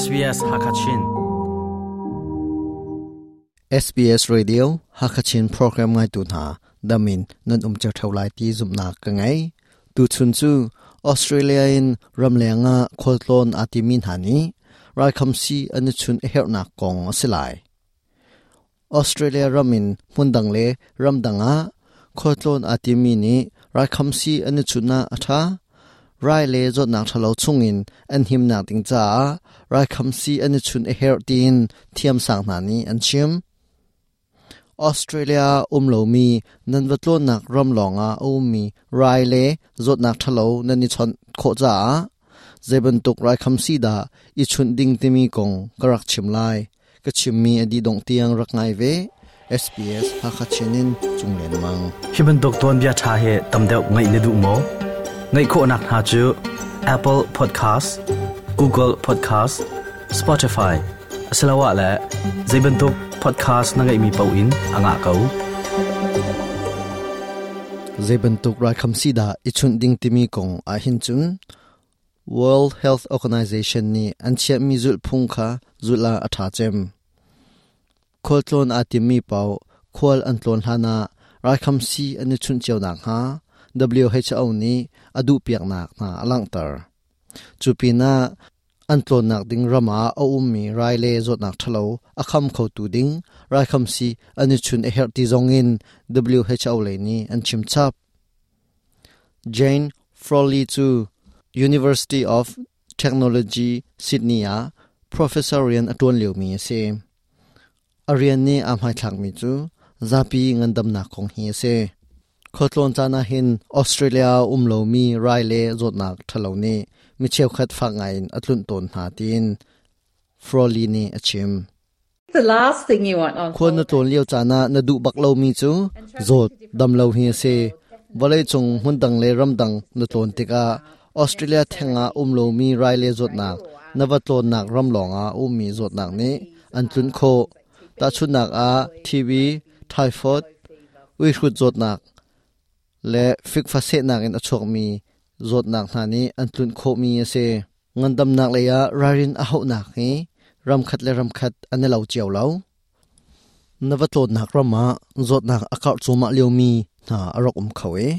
SBS Hakachin. SBS Radio Hakachin program ngai tu hna damin nan um cheu theu lai ti zumnak ka ngei. Tu chun cu Australia in ramleng ah khualtlawn aa timi hna nih raikhamsi an i chun a herhnak kong a si lai. Australia ram in hmundang le ramdang ah khualtlawn aa timi nih raikhamsi an i chunh ah a ṭha. Rai le zawtnak ṭhalo chungin an himnak ding caah raikhamsi an i chunh a herh tiin thiamsang hna nih an chim. Australia um lomi nan va tlawnnak ram lawngah a ummi rai le zawtnak ṭhalo nan i chawnh khawh caah zeibantuk raikhamsi dah i chunh ding timi kong ka rak chim lai. Ka chimmi a dih dongh tiang rak ngai ve. SBS Hakha Chin in Cung Len Mang. Hi bantuk tuanbia ṭha hi tam deuh ngaih na duh maw? Ngaih khawhnak hna cu Apple Podcast, Google Podcast, Spotify asiloah le zei bantuk podcast na ngeihmi paoh in a ngah ko. Zei bantuk raikhamsi dah i chunh ding timi kong ahhin cun World Health Organization nih an chiahmi zulhphung kha zulh ah a ṭha cem. Khualtlawn aa timmi paoh khual an tlawn hlanah raikhamsi an i chunh cio nakhnga WHO nih a duhpiaknak hna a langhter. Cu pinah an tlawnnak ding ram ah a ummi rai le zawtnak ṭhalo a kham khotu ding raikhamsi an i chun a herh ti zongin WHO lei nih an chim chap. Jane Frawley cu University of Technology Sydney ah professor rian a ṭuan liomi a si. A rian nih aa hmaithlakmi cu zapi ngandamnak kong hi a si. Khualtlawn caan ah hin Australia ah um lomi rai le zawtnak ṭhalo nih mi cheukhat fak ngaiin a tlunh tawn hna tiin Frawley nih a chim. Khual na tlawn lio caan ah na duh bak lomi cu zawt dam lo hi a si. Vawleicung hmundang le ramdang na tlawn tikah Australia theng ah um lomi rai le zawtnak na va tlawnnak ram lawngah a ummi zawtnak nih an tlunh khawh. Tahchunhnak ah TB, typhoid, uihrut zawtnak le fikfa sehnak in a chuakmi zawtnak hna nih an tlunh khawhmi a si. Ngandamnak lei ah ralrin a hauhnak hi ramkhat le ramkhat an i lo cio lo. Na va tlawnnak ram ah zawtnak a karh cuahmah liomi hna a rak um kho i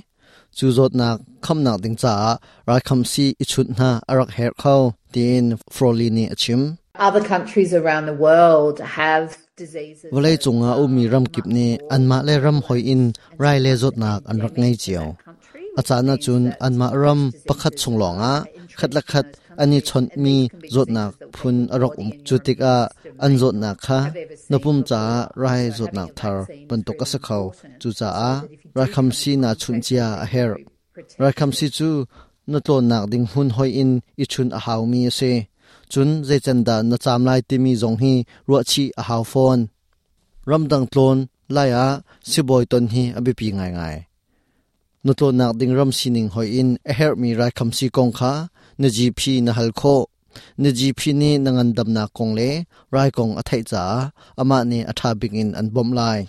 cu zawtnak khamnak ding caah raikhamsi i chunh hna a rak herh kho tiin Frawley nih a chim. Other countries around the world have Vawleicung ah ummi ramkip nih anmah le ram hoi in rai le zawtnak an rak ngei cio. A caan ahcun anmah ram pakhat chung lawngah khat le khat an i chawnhmi zawtnak phun a rak um. Cu tikah an zawtnak kha na pum caah rai zawtnak thar bantuk a si kho. Cucaah raikhamsi naa chunh cia a herh. Raikhamsi cu na tlawnnak ding hmun hoi in i chunh a haumi a si. Cun zeican dah na caam lai timi zong hi ruahchih a hau fawn. Ramdang tlawn lai ah sibawi ton hi a biapi ngaingai. Na tlawnnak ding ram sining hoi in a herhmi raikhamsi kong kha na GP na hal khawh. Na GP nih na ngandamnak kong le rai kong a theih caah amah nih a ṭha bik in an bawmh lai.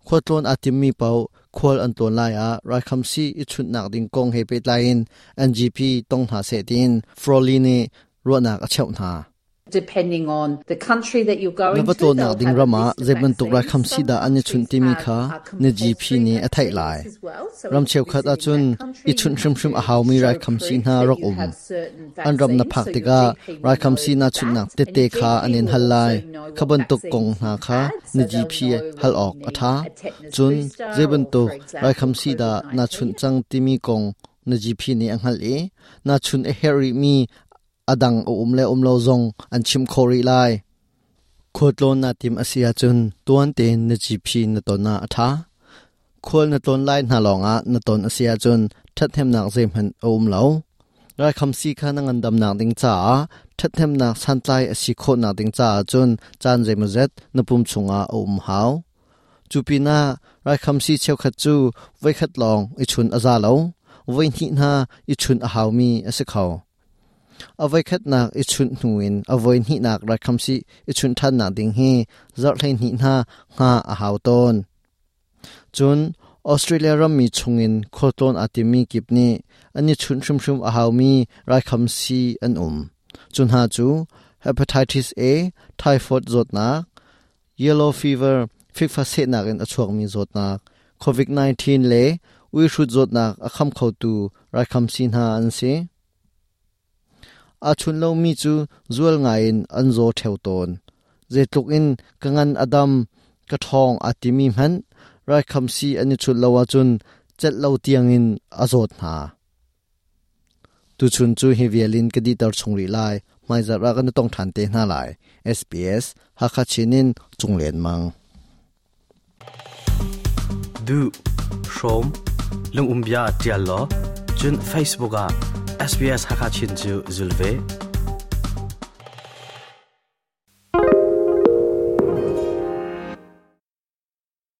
Khualtlawn aa timmi paoh khual an tlawn lai ah raikhamsi i chunhnak ding kong he pehtlai in an GP tong hna seh tiin Frawley nih ruahnak a cheuh hna. Depending on the country that you're going Na va to, tlawnnak they'll ding have a ram ah list of zei bantuk vaccines. raikhamsi Some dah an i countries chunh timi have kha a na GP compulsory nih a theih vaccines lai. as well. So Ram if you're cheukhat visiting ahcun that i country, you chunh have hrimhrim to a haumi show raikhamsi proof hna that rak you um. have certain An ram na vaccines. phak So your tikah GP will raikhamsi know na chunhnak that. And tette your kha GP an in will hal lai. also know Kha what bantuk kong vaccines hna you've kha had. na So they'll GP know hal whether awk you a need ṭha. a tetanus Cun booster zei or, bantuk for example, raikhamsi dah na chunh COVID-19. cang timi kong na GP nih a hngalh i na chun a herh rihmi a dang a um le um lo zong an chim khawh rih lai. Khualtlawn naa tim a si ahcun tuan tein na GP na ton ah a ṭha. Khual na tlawn lai hna lawngah na ton a si ahcun ṭhathnemnak zeihmanh a um lo. Raikhamsi kha na ngandamnak ding caah ṭhathnemnak santlai a si khawhnak ding caah cun caan zeimawzet na pum chungah a um hau. Cu pinah raikhamsi cheukhat cu voikhat lawng i chun a za lo, voihnih hna i chun a haumi a si kho. A voikhatnak i chunh hnu in a voihnihnak raikhamsi i chunh ṭhannak ding hi zarh 12 hna hngah a hau tawn. Cun Australia rammi chungin khualtlawn aa timmi kip nih an i chunh hrimhrim a haumi raikhamsi an um. Cu hna cu hepatitis A, typhoid zawtnak, yellow fever, fikfa sehnak in a chuakmi zawtnak, COVID-19 le uihrut zawtnak a kham khotu raikhamsi hna an si. Aa chun lomi cu zual ngaiin an zaw ṭheo tawn. Zeitluk in ka ngan a dam, ka ṭhawng aa timi hmanh raikhamsi an i chut lo ahcun celh lo tiangin a zawt hna. Tuchun cu hi vial in ka dihter chung rih lai. Hmaizarh ah kan i tong ṭhan te hna lai. SBS Hakha Chin in Cung Len Mang. Duh, hrawm, lungumbia ṭial law, cun Facebook ah SBS Hakha Chin cu zul ve.